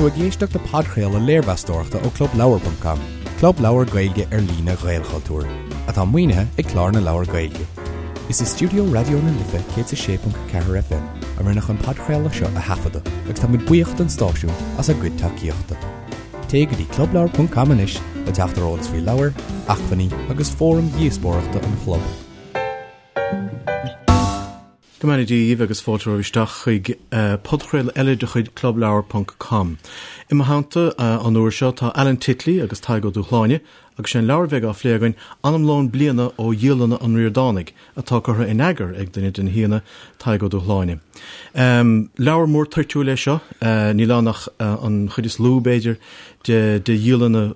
tú ag éisteacht le podchraoladh léirmheastóireachta ó ClubLeabhar.com, club leabhar Gaeilge ar líne Ghaelchultúir, atá maoinithe ag Clár na Leabhar Gaeilge. Is i stiúideo Raidió na Life 106.4 FM a rinneadh an podchraoladh seo a thaifeadadh agus tá muid buíoch don stáisiún as a gcuid tacaíochta. Téigh go dtí clubleabhar.com anois le teacht ar eolas faoi leabhair, acmhainní agus fóraim dhíospóireachta an chlub. Go mbeannaí Dia dhaoibh agus fáilte romhaibh isteach chuig podchraoladh eile de chuid Clubleabhar ponc com. I mo theannta an uair seo tá Alan Titley agus Tadhg Ó Dúshláine agus sé an leabhar a bheidh á phlé againn Anamlón Bliana ó Dhialanna an Ríordánaigh atá curtha in eagar ag duine de na haíonna, Tadhg Ó Dúshláine. Leabhar mór toirtiúil é seo, níl ann ach an chuid is lú, b'fhéidir, de dhialanna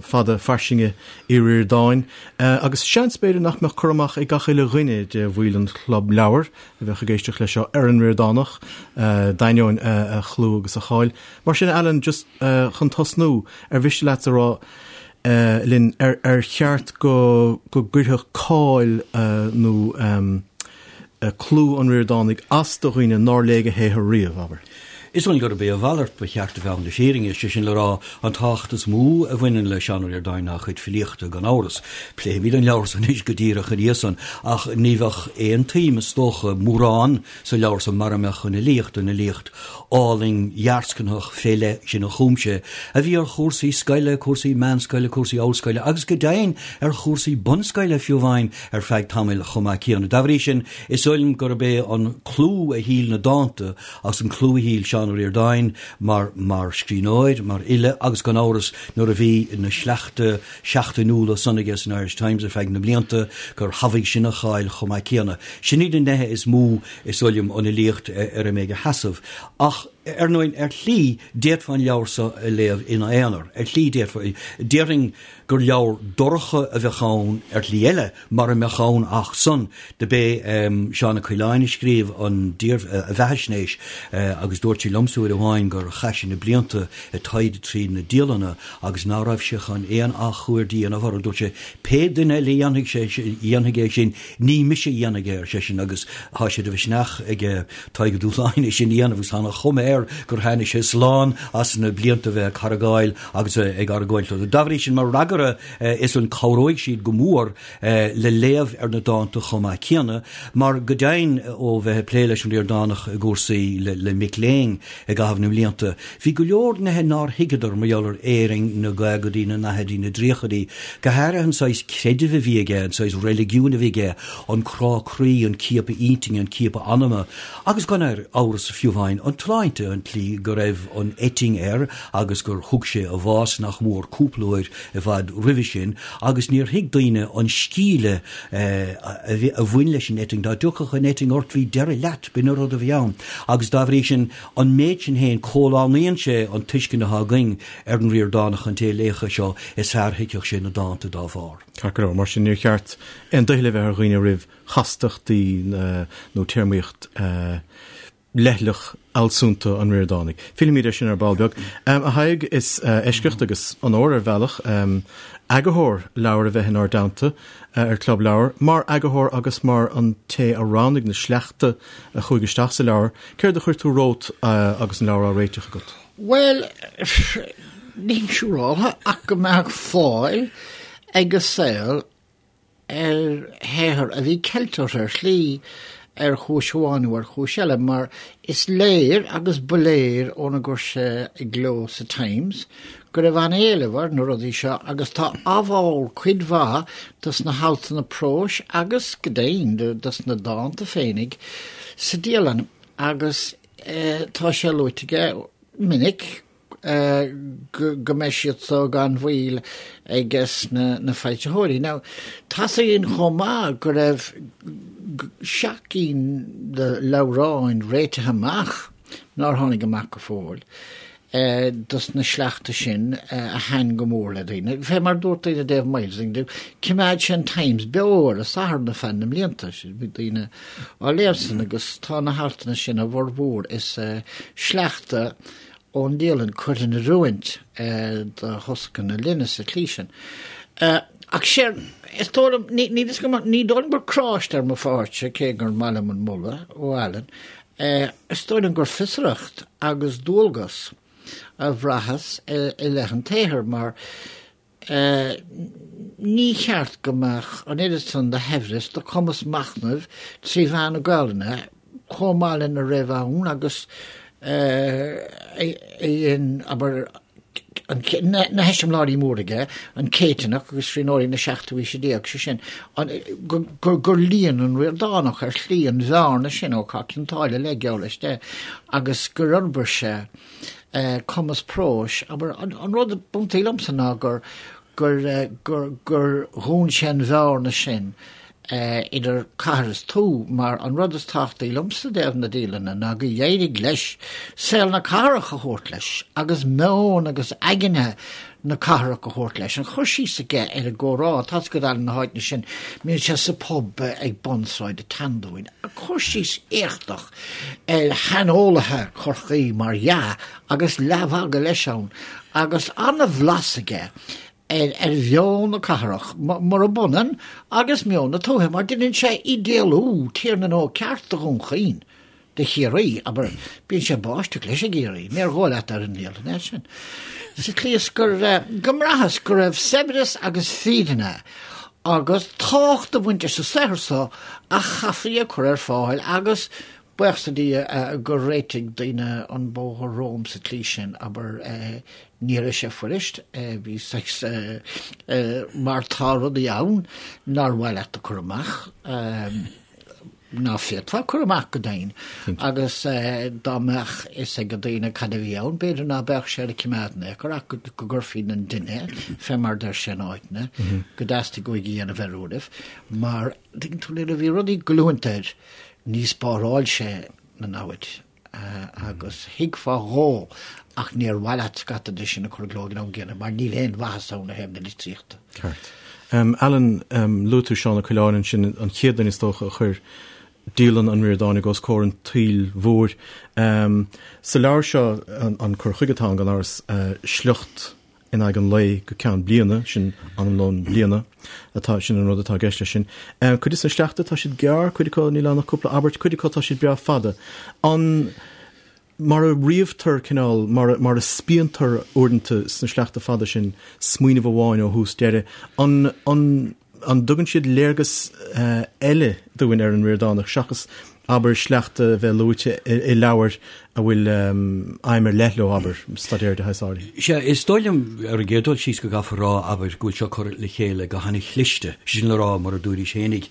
fada fairsinge Uí Ríordáin, agus seans, b'fhéidir, nach mbeadh cur amach ag gach uile dhuine de bhaill an Chlub Leabhar a bheadh ag éisteacht leis seo ar an Ríordánach, d'ainneoin a chlú agus a cháil. Mar sin, Alan, just chun tosnú, ar mhiste leat a rá linn ar cheart go gcuirfeadh cáil nó clú an Ríordánaigh as do dhaoine nár léigh a shaothar riamh, abair? Is dóigh liom gurb é a mhalairt ba cheart a bheith ann le fírinne, sé sin le rá, an tábhacht is mó a bhaineann le Seán Ó Ríordáin ná a chuid filíochta, gan amhras. Pléifimid an leabhar san anois go díreach ina dhiaidh san, ach ní bheadh aon tsuim, is dócha, mórán sa leabhar san mara mbeadh an fhilíocht, an fhilíocht álainn dhearscnaitheach fé leith sin a chum sé, a bhí ar chúrsaí scoile, cúrsaí meánscoile, cúrsaí ollscoile agus go deimhin ar chúrsaí bunscoile fiú amháin ar feadh tamaill chomh maith céanna. Dá bhrí sin, is dóigh liom gurb é an clú a thuill na dánta Agus an clú a thuill Seán Ó Ríordáin mar mar scríbhneoir, mar fhile agus gan amhras nuair a bhí na sleachta seachtainiúla san aige san Irish Times ar feadh na mblianta gur thabhaigh sin a cháil chomh maith céanna. Sin iad na neithe is mó is dóigh liom an fhilíocht ar a mbeidh a sheasamh. Ach ar ndóigh ar shlí d'fhéadfá an leabhar seo a léamh ina aonar. Ar shlí d'fhéadfá. Déarfainn gur leabhar dorcha a bheadh ann ar shlí eile mara mbeadh ann ach san. Do b'é Seán Ó Coileáin a scríobh an a bheathaisnéis agus dúirt sé liomsa uair amháin gur chaith sé na blianta ag taighde tríd na dialanna agus ná raibh sé chun aon athchuaird a dhéanamh orthu. Dúirt sé, Pé duine eile a dhéanfaidh sé, dhéanfaidh é sin, ní mise a dhéanfaidh é, ar seisean, agus tá sé de mhisneach ag Tadhg Ó Dúshláine é sin a dhéanamh agus tá an chuma air gur tháinig sé slán as na blianta a bheith ag cargáil agus ag argóint leo. Dá bhrí sin, mar fhreagra is an cabhróidh siad go mór le léamh ar na dánta chomh maith céanna, mar go deimhin ó bheith ag plé leis an Ríordánach i gcúrsaí le mic léinn i gcaitheamh na mblianta, bhí go leor nithe nár thuigeadar mar gheall ar Éirinn na gcaogaidí, na ndaichidí, na dtríochaidí, go háirithe an saghas creidimh a bhí aige, an saghas reiligiúin a bhí aige, an crá croí, an ciapadh intinne, an ciapadh anama, agus gan amhras fiú amháin an tsláinte, an tslí go raibh an eitinn air agus gur thug sé a bhás nach mór cúpla uair i bhfad roimhe sin, agus níor thuig daoine an scíle a bhain leis an eitinn. Dá dtiocfadh an eitinn ort bhí deireadh leat, b'in an rud a bhí ann. Agus dá bhrí sin, an méid sin féin, comhlánaíonn sé an tuiscint atá againn ar an Ríordánach, an té a léifeadh é seo, is fearr a thuigfeadh sé na dánta dá bharr. Ceart go leor, mar sin níor cheart aon doicheall a bheith ar dhaoine roimh chastachtaí nó téarmaíocht leithleach fhealsúnta an Ríordánaigh. Fillfimid air sin ar ball beag. A Thaidhg, is eisceacht agus onóir ar bhealach eagarthóir leabhair a bheith inár dteannta ar Club Leabhar. Mar eagarthóir agus mar an té a roghnaigh na sleachta a chuaigh isteach sa leabhar, céard a chuir tú romhat agus an leabhar á réiteach agat? Bhuel, nílim siúráltha ach go mbeadh fáil ag an saol ar shaothar a bhí ceilte ar shlí, ar chúis amháin nó ar chúis eile, mar is léir, agus ba léir óna gcuir sé i gcló sa Times, go raibh an-éileamh ar na rudaí seo agus tá ábhar cuid mhaith dos na haltanna próis agus, go deimhin, dos na dánta féinig sa dialann agus tá sé luaite aige minic go mbeidh siad so gan mhoill aiges na foilsitheoirí. Now, tá's againn chomh maith go raibh seacht gcinn de leabhráin réitithe amach nár tháinig amach go fóill dos na sleachta sin a thaitin go mór le daoine. Fé mar dúirt daoine i dtaobh Myles, choimeád sé an Times beo ar an Satharn ar feadh na mblianta, bhí daoine á léamh san agus tá na haltanna sin a bhformhór is sleachta ón dialann curtha in oiriúint do thosca na linne sa tslí sin. Ach séard, is dóigh liom, ní ní ní dóigh liom gur cráiste ar mo pháirtse, cé gur maith liom an moladh ó Alan, is dóigh liom gur fiosracht agus dualgas. a bhraitheas i leith an tsaothair mar ní cheart go mbeadh an oiread san de shaibhreas, de chumas machnaimh trí mheán na Gaelainne chomh maith lena raibh ann agus a dhein, abair, na heiseamláirí móra aige, an Céitinneach agus scríbhneoirí na seachtú haoise déag, sé sin, gur líon an Ríordánach ar shlí an bhearna sin ó Chath Cionn tSáile le geall leis de agus gur fhorbair sé cumas próis. Abair, an rud ab iontaí liomsa ná gur gur gur dhún sé an bhearna sin idir cathair is tuath, mar an rud is tábhachtaí liomsa i dtaobh na dialainne ná gur éirigh leis saol na cathrach a thabhairt leis agus meon agus aigne na cathrach a thabhairt leis. An cur síos aige ar an gcomhrá, tá a fhios agat na háiteanna sin, mbíonn sé sa pub ag bun Sráid an tSeandúin, cur síos éachtach ar shaineolaithe Chorcaí mar dhea agus leathmhagadh leis ann agus an-bhlas aige ar ar mheon na cathrach, murab ionann agus meon na tuaithe, mar deineann sé idéalú Tír na nÓg ceart de Dhún Chaoin, de Chiarraí, abair, bíonn sé ag báisteach leis i gCiarraí, níor dhóigh leat ar an ndialann é sin. Sa tslí is gur, go mbraitheas go raibh saibhreas agus fírinne agus tábhacht ag baint leis an saothar so a chaithfí a chur ar fáil agus Buíochas le Dia gur réitigh daoine an bóthar romham sa tslí sin, abair, ní raibh sé fuirist, bhí saghas, mar tá rudaí ann nár mhaith leat a chur amach, ná féadfá a chur amach go deimhin, agus dá mbeadh fhios ag daoine cad a bhí ann, b'fhéidir ná beadh sé le cimeád in aon chor ach go gcuirfí na duine, fé mar deir sé in áiteanna, go dteastaigh uaidh a dhéanamh ar uairibh, mar, tuigeann tú, nuair a bhí rudaí ag goilliúint air, ní spáráil sé na namhaid agus thuigfeá dhó ach níor mhaith leat scata de sin a chur i gcló ag an am gcéanna mar níl aon mhaitheas ann ó thaobh na litríochta. Ceart. Alan, luaigh tú Seán Ó Coileáin ansin, an chéad duine is dócha a chuir dialann an Ríordánaigh os comhair an tsaoil mhóir. Sa leabhar seo, an cur chuige atá ann gan amhras, sliocht in aghaidh an lae go ceann bliana, sin anamlón bliana atá, sin an rud atá i gceist leis sin. Cuid de na sleachta, tá siad gearr, cuid acu níl ann ach cúpla abairt, cuid acu tá siad breá fada. An, mar a ríomhtar cineál, mar a, mar a spíontar uaireanta sna sleachta fada sin smaoineamh amháin ó thús deireadh, an, an, An dtugann siad léargas eile dúinn ar an Ríordánach seachas, abair, sleachta a bheith luaite i leabhair a bhfuil aidhm ar leith leo, abair, staidéar de shaghas áirithe? Sea, is dóigh liom, ar an gcéad dul síos, go gcaithfear a rá, abair, go bhfuil seo curtha le chéile go han-chliste, sin le rá, mar a dúraís fhéinig,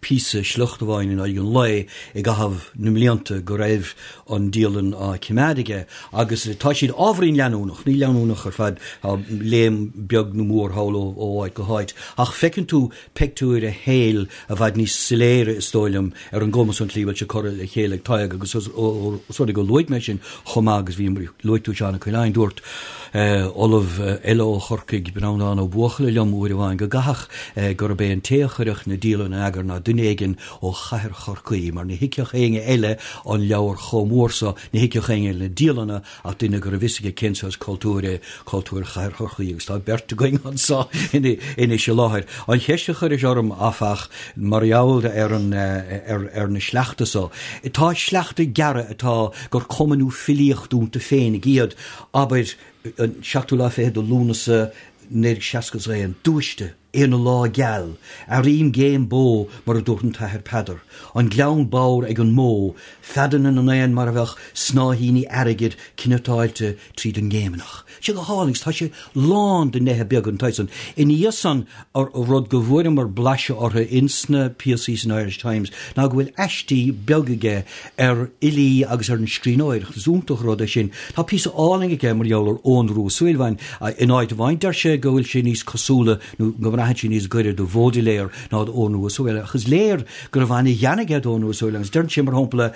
píosa, sliocht amháin in aghaidh an lae i gcaitheamh na mblianta go raibh an dialann á cimeád aige agus tá siad ábhairín leanúnach, ní leanúnach ar fad, tá léim beag nó mór thall ó áit go háit, ach feiceann tú peictiúir a shaoil i bhfad níos soiléire, is dóigh liom, ar an gcuma san, an tslí a bhfuil sé curtha le chéile ag Tadhg agus os rud é gur luaigh mé sin chomh maith agus bhí, luaigh tú Seán Ó Coileáin, dúirt ollamh eile ó Chorcaigh, Breandán Ó Buachalla liom uair amháin go gcaithfeadh gurb é an té a chuirfeadh na dialanna in eagar ná duine éigin ó chathair Chorcaí, mar ní thuigfeadh éinne eile an leabhar chomh mór so, ní thuigfeadh éinne eile na dialanna ach duine go raibh fhios aige cén saghas cultúir é cultúr chathair Chorcaí, agus tá beirt againn anso anois i láthair. An cheist a chuiris orm, áfach, mar gheall ar an, ar na sleachta so, tá sleachta gearra atá gur cuma nó filíocht iontu féinig iad, abair, an seachtú lá fichead de Lúnasa 1961, Dúiste! Aon lá geal, airím géim bó mar a dúirt an tAthair Peadar, an gleann bodhar ag an mbó, feadanna na n-éan mar a bheadh snáithíní airgid cniotáilte tríd an ngéimneach. Sé go hálainn agus tá sé lán de neithe beaga den tsaghas san. Ina dhiaidh san, rud go bhfuaireamar blaiseadh orthu ins na píosaí san Irish Times ná go bhfuil aistí beaga aige ar fhilí agus ar an scríbhneoireacht. Is iontach an rud é sin. Tá píosa álainn aige mar gheall ar Eoghan Rua Ó Súilleabháin. In áit amháin deir sé go bhfuil sé níos cosúla nó go mbraitheann sé níos gaire do Bhaudelaire ná d'Eoghan Rua Ó Súilleabháin. Ach is léir go raibh an-ghean aige d'Eoghan Rua Ó Súilleabháin agus deireann sé, mar shampla,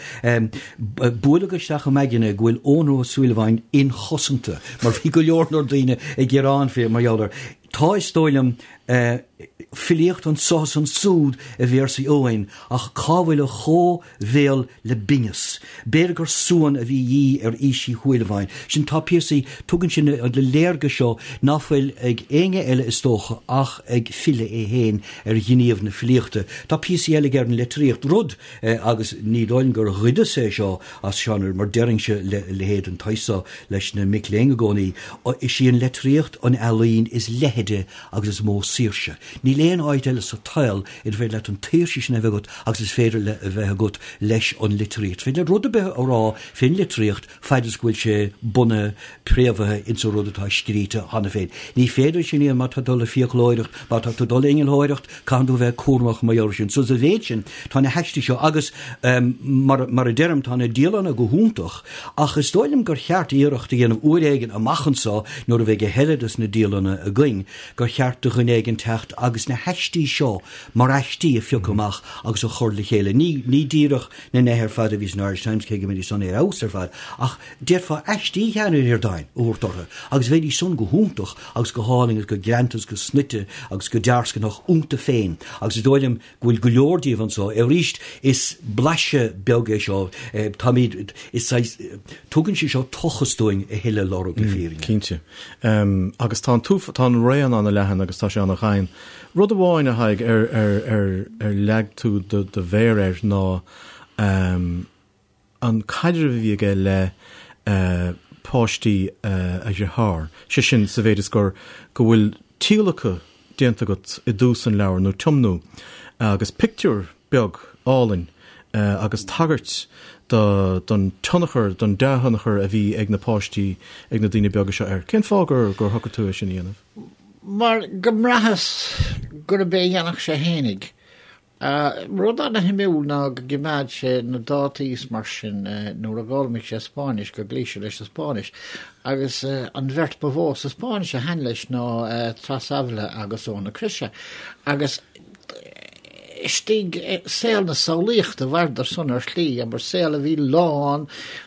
buaileadh isteach i m'aigne go bhfuil Eoghan Rua Ó Súilleabháin inchosanta mar bhí go leor leor daoine ag gearán fé mar gheall air. Tá, is dóigh liom, filíocht anso is ansúd i véarsaí amháin, ach cá bhfuil a chomh-bhéal le binneas? B'fhéidir gur suan a bhí a dhíth ar aois Uí Shúilleabháin. Sin, tá píosaí, tugann sin an léargas seo ná fuil ag éinne eile is dócha ach ag file é féin ar ghníomh na filíochta. Tá píosaí eile aige ar an litríocht, rud, agus ní dóigh liom gur ghoideas é seo as Seán, mar deirimse leithéid den tsaghas so leis na mic léinn i gcónaí, is í an litríocht an ealaín is leithide agus is mó saoirse. Níl aon áit eile sa tsaol inar féidir leat an tsaoirse sin a bheith agat agus is féidir le a bheith agat leis an litríocht. Is féidir leat rud ar bith a rá fén litríocht faid is go bhfuil sé bunaithe, préamhaithe ins an rud atá scríte cheana féin. Ní féidir sin a dhéanamh má tá tú ag dul le fiaclóireacht, má tá tú ag dul le innealtóireacht, Caitheann tú a bheith cúramach mar gheall air sin. So sa mhéid sin, tá na haistí seo agus, mar, mar a deirim, tá na dialanna go hiontach, ach is dóigh liom gur cheart iarracht a dhéanamh uair éigin amach anso, nuair a bheidh a thuilleadh des na dialanna againn, gur cheart do dhuine éigin teacht agus na haistí seo mar aistí a phiocadh amach agus a chur le chéile. Ní, ní díreach na neithe ar fad a bhí san Irish Times, cé go mbeidís san ar fheabhas ar fad, ach d'fhéadfá aistí Sheáin Uí Ríordáin a thabhairt orthu agus bheidís san go hiontach agus go hálainn agus go greanta agus go snoite agus go dearscnaitheach iontu féin agus is dóigh liom go bhfuil go leor díobh anso. Arís, is blaiseadh beag é seo, táimid, is saghas, tugann sé seo tochas dúinn a thuilleadh a lorg le fírinne. Cinnte. Agus tá an t-uaf, tá an raon an-leathan agus tá sé an-ghann. Rud amháin, a Thaidhg, ar, ar, ar, ar leag tú do, do mhéar air ná an caidreamh a bhí aige le páistí a dhearthár, sé sin, sa mhéid is gur, go bhfuil tíolacadh déanta agat i dtús an leabhair, nó tiomnú, agus pictiúr beag álainn agus tagairt do, don tionchar, don dea-thionchar a bhí ag na páistí, ag na daoine beaga seo air. Cén fáth gur, gur shocraigh tú é sin a dhéanamh? Mar go mbraitheas gurb é a dhéanfadh sé fhéinig. Rud ana-shuimiúil ná go gcimeád sé na dátaí is mar sin nuair a d'fhoghlaimigh sé Spáinnis, go gcloígh sé leis an Spáinnis. Agus an bheirt ba mhó sa Spáinnis a thaitin leis ná Tras Ávila agus Eoin na Croise. Agus istigh i saol na samhlaíochta mhaireadar san ar shlí, abair, saol a bhí lán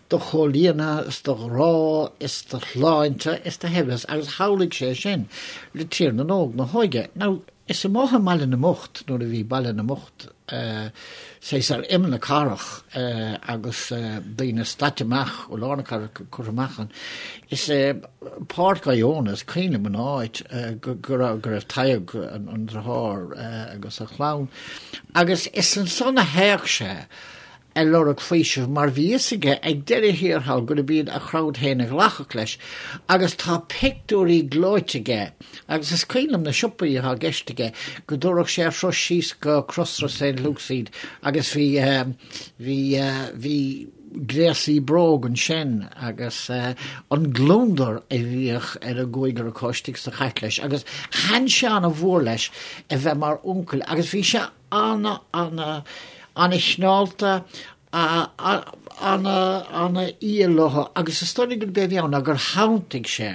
de chomhlíonadh is de ghrá is de shláinte is de shaibhreas agus shamhlaigh sé sin le Tír na nÓg, na hóige. Now, Is amuigh i mBaile na mBocht, nuair a bhí Baile na mBocht saghas ar imeall na cathrach agus daoine staite amach ó lár na cathrach curtha amach ann, is i Páirc Iona, is cuimhin liom an áit go raibh Tadhg, an deartháir, agus a chlann, agus is ansan a théadh sé ag lorg faoisimh mar bhí fhios aige ag deireadh thiar thall gurb iad a chrowd féin a ghlacfadh leis agus tá pictiúirí gleoite aige agus is cuimhin liom na siopaí atá i gceist aige go dtabharfadh sé a thuras síos go Crossroads St Luke's iad agus bhí bhí bhí gréasaí bróg ansin agus an gliondar a bhíodh ar an gcúigear acu istigh sa chairt leis agus thaitin sé ana-mhór leis a bheith mar uncail agus bhí sé ana, ana, ana-chineálta, ana, ana-fhial leo agus is dóigh liom gurb é a bhí ann ná gur shantaigh sé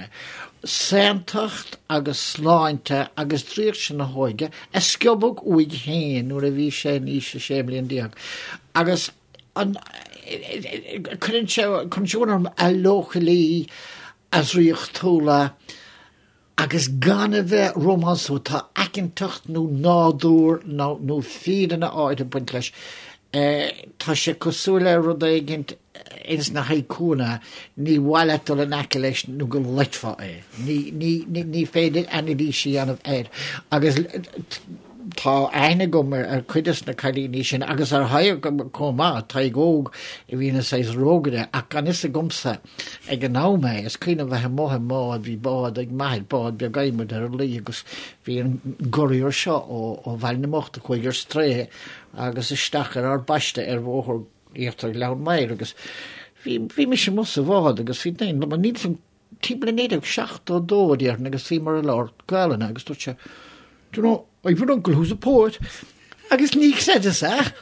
saontacht agus sláinte agus draíocht sin na hóige a sciobadh uaidh féin nuair a bhí sé in aois a 16 mbliain agus an, cuireann sé, cuireann sé orm a leochailí, a dhraíochtúla, Agus gan a bheith rómánsúil, tá aiceantacht nó nádúr nó fírinne áirithe ag baint leis. Tá sé cosúil le rud éigint ins na haikuanna, ní mhaith leat dul in aice leis nó go loitfeá é. Ní féidir anailís a dhéanamh air. Agus tá aithne agam ar chuid des na cailíní sin agus ar Thadhg chomh maith, Tadhg Óg a bhí ina saghas rógaire ach gan fhios agamsa Ag an am é, is cuimhin liom bheith amuigh i mbád, bhí bád ag m'athair, bád beag adhmaid ar an Laoi agus bhí an gurraíoir seo ó Bhaile na mBocht a chuaigh ar strae agus isteach ar ár bpaiste ar bhóthar íochtar Ghleann Maghair agus bhí, bhí mise amuigh sa bhád agus bhí daoine liom, níl 'fhios a'm, timpeall 1972 a déarfainn agus bhíomar ag labhairt Gaelainne agus dúirt sé, Do you know, I've an uncle who's a poet. Agus ní chreideas é.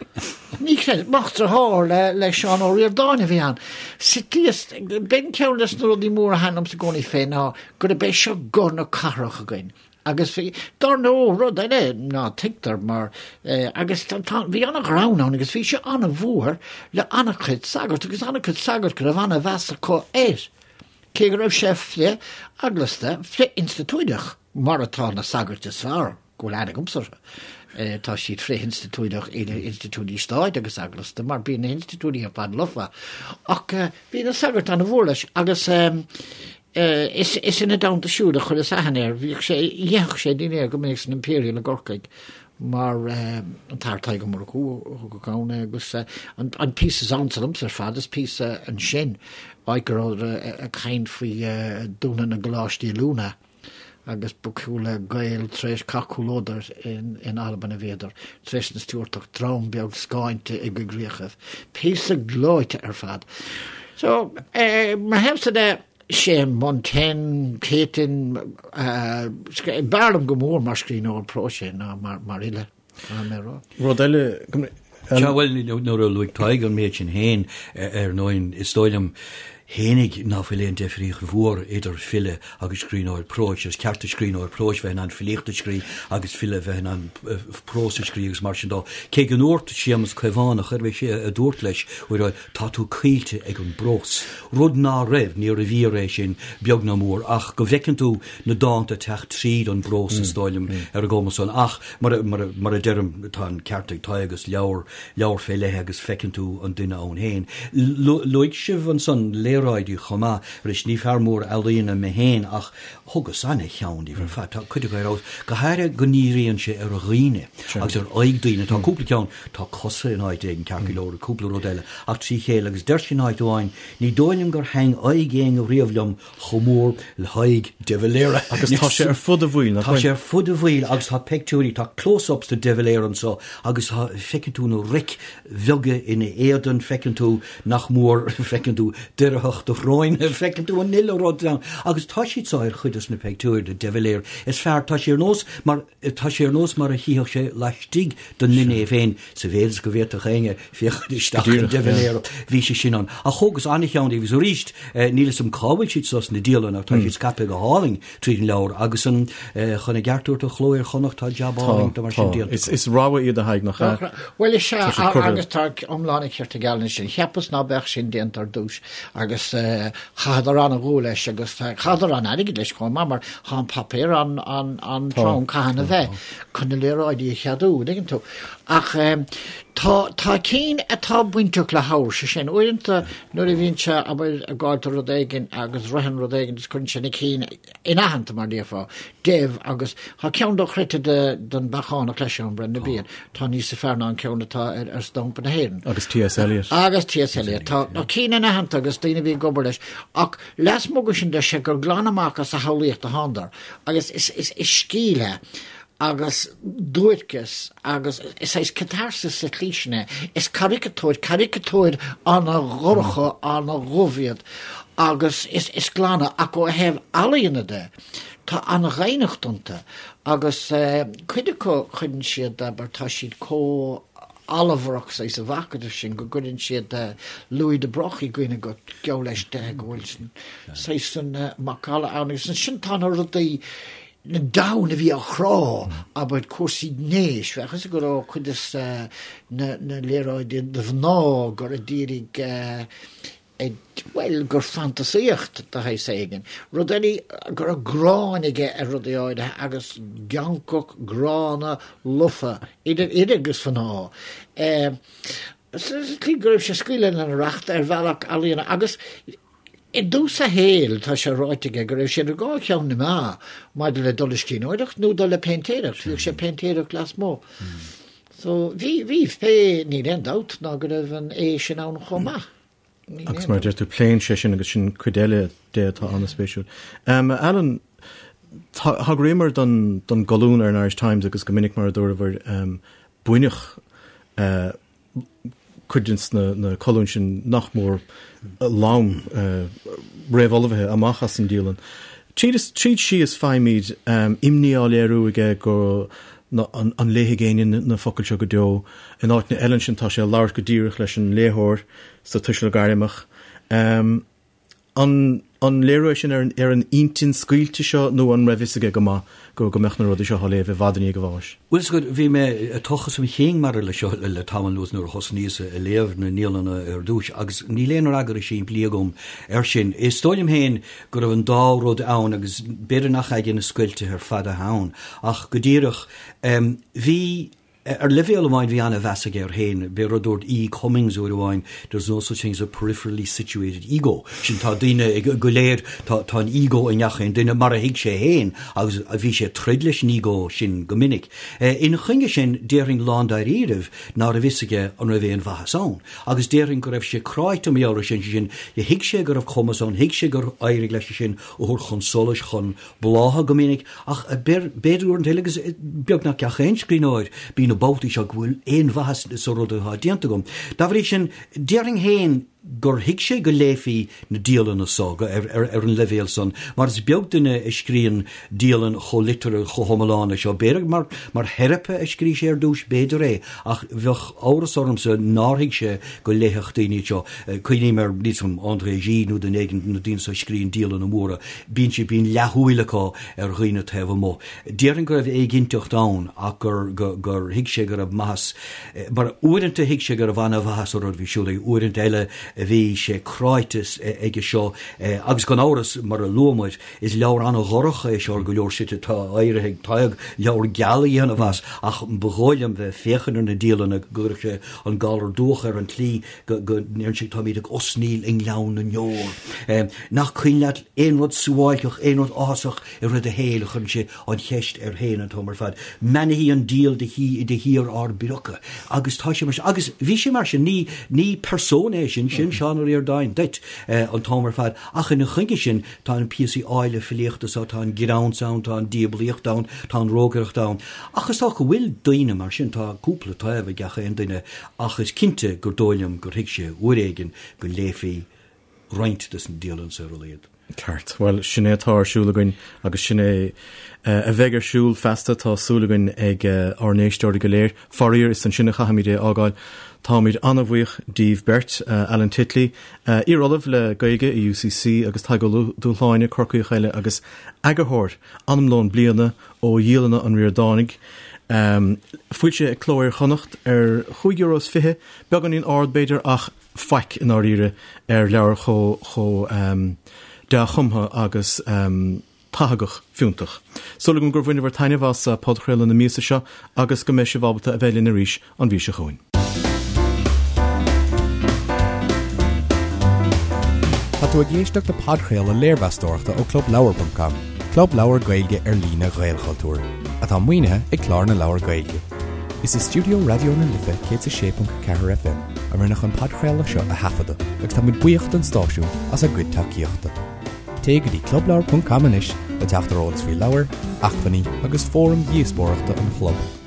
Ní chreideas. Mac dearthár le, le Seán Ó Ríordáin a bhí ann. Sitíos, b'in ceann des na rudaí móra a thaitin liomsa i gcónaí fé ná gurb é seo guth na cathrach againn. Agus bhí, dar ndóigh, rud eile ná tuigtear mar, eh, agus tá, tá, bhí ana-ghreann ann agus bhí sé ana-mhór le ana-chuid sagart agus ana-chuid sagart go raibh ana-mheas acu air. Cé go raibh sé frith-eaglasta, frith-institiúideach. Mar atá na sagairt is fearr go bhfuil aithne agamsa orthu. Tá siad frith-institiúideach idir institiúidí stáit agus eaglasta, mar bíonn na hinstitiúidí ar fad lofa. Ach bhí na sagairt an-mhór leis agus is ina dteannta siúd a chuireas aithne air. Bhíodh sé, dheitheadh sé dinnéar go minic san Imperial i gCorcaigh mar an tAthair Tadhg Ó Murchú a thugadh ann é agus an píosa is ansa liomsa ar fad is píosa ansin, áit go rabhadar ag caint faoi dúnadh na gcoláistí oiliúna. agus ba chosúil le Gaeil tar éis Cath Chúil Odhar in Albain a bhíodar, tar éis na Stiúrtach, dream beag scáinte i gcoigríochaibh. Píosa gleoite ar fad. So, mo thaobhsa de, sé Montaigne, Céitinn, b'fhearr liom go mór mar scríbhneoir próis é ná mar fhile. Rud eile, Sea, bhuel, nuair a luaigh Tadhg an méid sin féin, ar ndóigh, is dóigh liom fhéinig ná fuil aon deifríocht mhór idir file agus scríbhneoir próis. Is ceart do scríbhneoir próis bheith in ann filíocht a scrí agus file bheith in ann prós a scrí agus mar sin dó. Cé go ndúirt Séamus Caomhánach, arbh é sé a dúirt leis, uair amháin, tá tú coillte ag an bprós. Rud ná raibh, níorbh fhíor é sin, beag ná mór, ach go bhfeiceann tú na dánta ag teacht tríd an bprós, is dóigh liom, ar an gcuma san. Ach Mar a deirim, tá an ceart ag Tadhg, is leabhar, leabhar fé leith é agus feiceann tú an duine ann féin. Luaigh sibh ansan léaráidí chomh maith. Arís, ní fear mór ealaíona mé féin ach thugas ana-cheann díobh ar fad. Tá cuid acu ar fheabhas, go háirithe go ndíríonn sé ar dhaoine agus ar aghaidh daoine. Tá cúpla ceann, tá cosa in áit éigin ceart go leor, cúpla rud eile ach trí chéile agus deir sé in áit amháin, ní dóigh liom gur thaitn aghaidh éinne riamh liom chomh mór le haghaidh De Valera. Agus tá sé ar fud a bhaill, nach bhfuil? Tá sé ar fud a bhaill agus tá peictiúirí, tá close-ups de De Valera anseo agus tá, feiceann tú na roic bheaga ina éadan, feiceann tú nach mór, feiceann tú doircheacht a shróine, feiceann tú an uile rud ann. Agus tá siad seo ar chuid des na peictiúir de De Valera is fearr, tá sé ar nós mar, tá sé ar nós mar a chífeadh sé laistigh den nduine é féin, sa mhéid is go bhféadfadh éinne féachaint isteach in De Valera. Bhí sé sin ann. Ach thógas an-cheann díobh agus arís, níl 'fhios a'm cá bhfuil siad seo sna dialanna ach tá siad scaipthe go hálainn tríd an leabhar agus an, chun a gceart a thabhairt do Chló Iar-Chonnacht, tá jab álainn de mar sin déanta acu. Is rogha iad a Thaidhg, nach ea? Bhuel, is ea, agus tá iomlán an chirt ag Alan ansin. Cheapas ná beadh sin déanta ar dtús agus chaitheadar an-dhúil leis agus chaitheadar an-airgead leis chomh maith mar tá an paipéar an-trom caithfidh a bheith chun na léaráidí a cheadú, an dtuigeann tú. Ach tá tá cinn atá bainteach le hábhar, sé sin, uaireanta nuair a bhíonn sé, abair, ag gabháil do rud éigin agus ritheann rud éigin is cuireann sé na cinn inaitheanta mar déarfá, Dev agus tá ceann dochreidte de den Beachánach leis ann, Brendan Behan, tá níosa fearr ná an ceann atá ar ar stampa na hÉireann. Agus T.S. Eliot. Agus T.S. Eliot. Tá na cinn inaitheanta agus daoine a bhí ag obair leis. Ach lasmuigh de sin deir sé gur glan amach as a shamhlaíocht a thánadar agus is is is scil é agus duairceas agus is saghas catarsis sa tslí sin é. Is caricatúir, caricatúir ana-dhorcha, ana-dhubh iad agus is is glana ach ó thaobh ealaíona de, tá an-dhoimhneacht iontu agus cuid acu cuireann siad, abair, tá siad chomh allmharach saghas sa mhacadamh sin go gcuireann siad Louis de Broglie i gcuimhne dhuit, geall leis de go bhfuil saghas san macalla ann agus ansin tá na rudaí na domhan a bhí á chrá, abair, cúrsaí gnéis, bheadh fhios go raibh cuid des na léaráidí de mhná gur a d'iarraidh bhuel, gur fantasaíocht de shaghas éigin. Rud eile go raibh gráin aige ar rudaí áirithe agus geancach gránna lofa, idir fhir agus mhná. Sa tslí go raibh sé ag scaoileadh lena racht ar bhealach ealaíona agus I dtús a shaoil, tá sé ráite aige go raibh sé idir dhá cheann na meá maidir le dul le scríbhneoireacht nó dul le péintéireacht. Bhíodh sé ag péintéireacht lasmuigh. So, bhí, bhí, pé, níl aon dabht ná go raibh an aoi sin ann chomh maith. Níl Agus aon mar a deir tú, pléann sé sin agus sin cuid eile de atá an-spéisiúil. Alan, thagraíomar don, don gcolún ar an Irish Times agus go minic mar a dúramar, baineadh cuid de na colúin sin nach mór lom réamhullmhaithe amach as an dialann. Tríd is tríd síos faighimid imní á léiriú aige go an léifidh éinne na focail seo go deo. In áiteanna eile ansin tá sé ag labhairt go díreach leis an léitheoir sa tuiseal gairmeach. An. An léiriú é sin ar an intinn scaoilte seo nó an raibh fhios aige go maith go go mbeadh na rudaí seo á léamh i bhfad i ndiaidh a bháis? Bhuel, is bhí mé ag tochas mo chinn maidir leis seo le tamall anuas nuair a thosnaíos ag léamh na ndialanna ar dtús agus níl aon fhreagra simplí agam air sin. Is dóigh liom féin go raibh an dá rud ann agus b'fhéidir nach aige na scoilteadh ar fad atá ann ach go díreach bhí Ar leibhéal amháin bhí an-mheas aige air féin. B'é rud a dúirt E. Cummings uair amháin, There's no such thing as a peripherally situated ego. Sin tá daoine go léir, tá tá an ego i ngach aon duine, mar a thuig sé féin, agus bhí sé ag troid leis an ego sin go minic. Ina choinne sin, déarfainn lándáiríribh ná raibh fhios aige an raibh aon mhaitheas ann. Agus déarfainn go raibh sé cráite mar gheall air sin, sé sin, thuig sé go raibh cumas ann, thuig sé gur éirigh leis é sin a thabhairt chun solais, chun blátha go minic, ach b'fhéidir uaireanta eile, agus beagnach gach aon scríbhneoir, bíonn na babhtaí seo go bhfuil aon mhaitheas sa rud atá déanta agam. Dá bhrí sin, déarfainn féin gur thuig sé go léifí na dialanna so ar an leibhéal san, mar is beag duine a scríonn dialann chomh liteartha, chomh hiomlán leis seo. B'fhéidir mar mar theiripe a scrígh sé ar dtús, b'fhéidir é, ach bheadh amhras ormsa nár thuig sé go léifeadh daoine iad seo. Cuimhním ar, níl 's agam, André Gide nó duine éigin, na daoine so a scríonn dialanna móra, Bíonn siad, bíonn leathshúil acu ar dhaoine taobh amuigh. Déarfainn go raibh éiginnteacht ann ach gur, gur thuig sé go raibh maitheas, mar uaireanta thuig sé go raibh ana-mhaitheas sa rud a bhí ar siúl aige, uaireanta eile bhí sé cráite aige seo agus gan amhras, mar a luaigh muid, is leabhar ana-dhorcha é seo ar go leor slite, tá éirithe ag Tadhg leabhar geal a dhéanamh as ach ba dhóigh liom bheith ag féachaint ar na dialanna go gcuirfeadh sé an galar dubhach air an tslí go ndeireann sé táimid ag osnaíl i ngleann na ndeor. Nach cuimhin leat aon rud suáilceach, aon rud áthasach i rith do shaoil, chuireann sé an cheist air féin an t-am ar fad. Mbeannaithí an diabhal de shíor ár bpriocadh. Agus tá sé mar sin. Agus bhí sé mar sin. Ní, ní persona é sin, sin Seán Ó Ríordáin duit an t-am ar fad. Ach ina choinne sin, tá na píosaí áille filíochta so, tá an greann ann, tá an diablaíocht ann, tá an rógaireacht ann. Ach is dócha go bhfuil daoine mar sin, tá cúpla taobh ag gach aon duine Ach is cinnte gur dóigh liom gur thuig sé uair éigin go léifí roinnt des na dialanna so ar a laghad. Ceart. Bhuel, sin é atá ar siúl againn agus sin é a bheidh ar siúl feasta, tá súil againn, ag ár n-éisteoirí go léir. Faraor, is ansin a chaithfimid é a fhágáil. Táimid an-bhuíoch díbh beirt, Alan Titley, iar-ollamh le Gaeilge i UCC agus Tadhg Ó Dúshláine, Corcaíoch eile agus eagarthóir Anamlón Bliana ó Dhialanna an Ríordánaigh, foilsithe ag Cló Iar-Chonnacht ar chúig euro is fiche, beagáinín ard b'fhéidir ach faic i ndáiríre ar leabhar chomh dea-chumtha agus tathagach fiúntach. Súil agam gur bhaineabhair taitneamh as podchraoladh na míosa seo agus go mbeidh sibh ábalta a bheith linn arís an mhí seo chugainn. Tá tú ag éisteacht le podchraoladh léirmheastóireachta ó ClubLeabhar.com, club leabhar Gaeilge ar líne Ghaelchultúir, atá maoinithe ag Clár na Leabhar Gaeilge. Is i stiúideo Raidió na Life 106.4 FM a rinneadh an podchraoladh seo a thaifeadadh agus táimid buíoch don stáisiún as a gcuid tacaíochta. Téigh go dtí clubleabhar.com anois le teacht ar eolas faoi leabhair, acmhainní agus fóraim dhíospóireachta an chlub.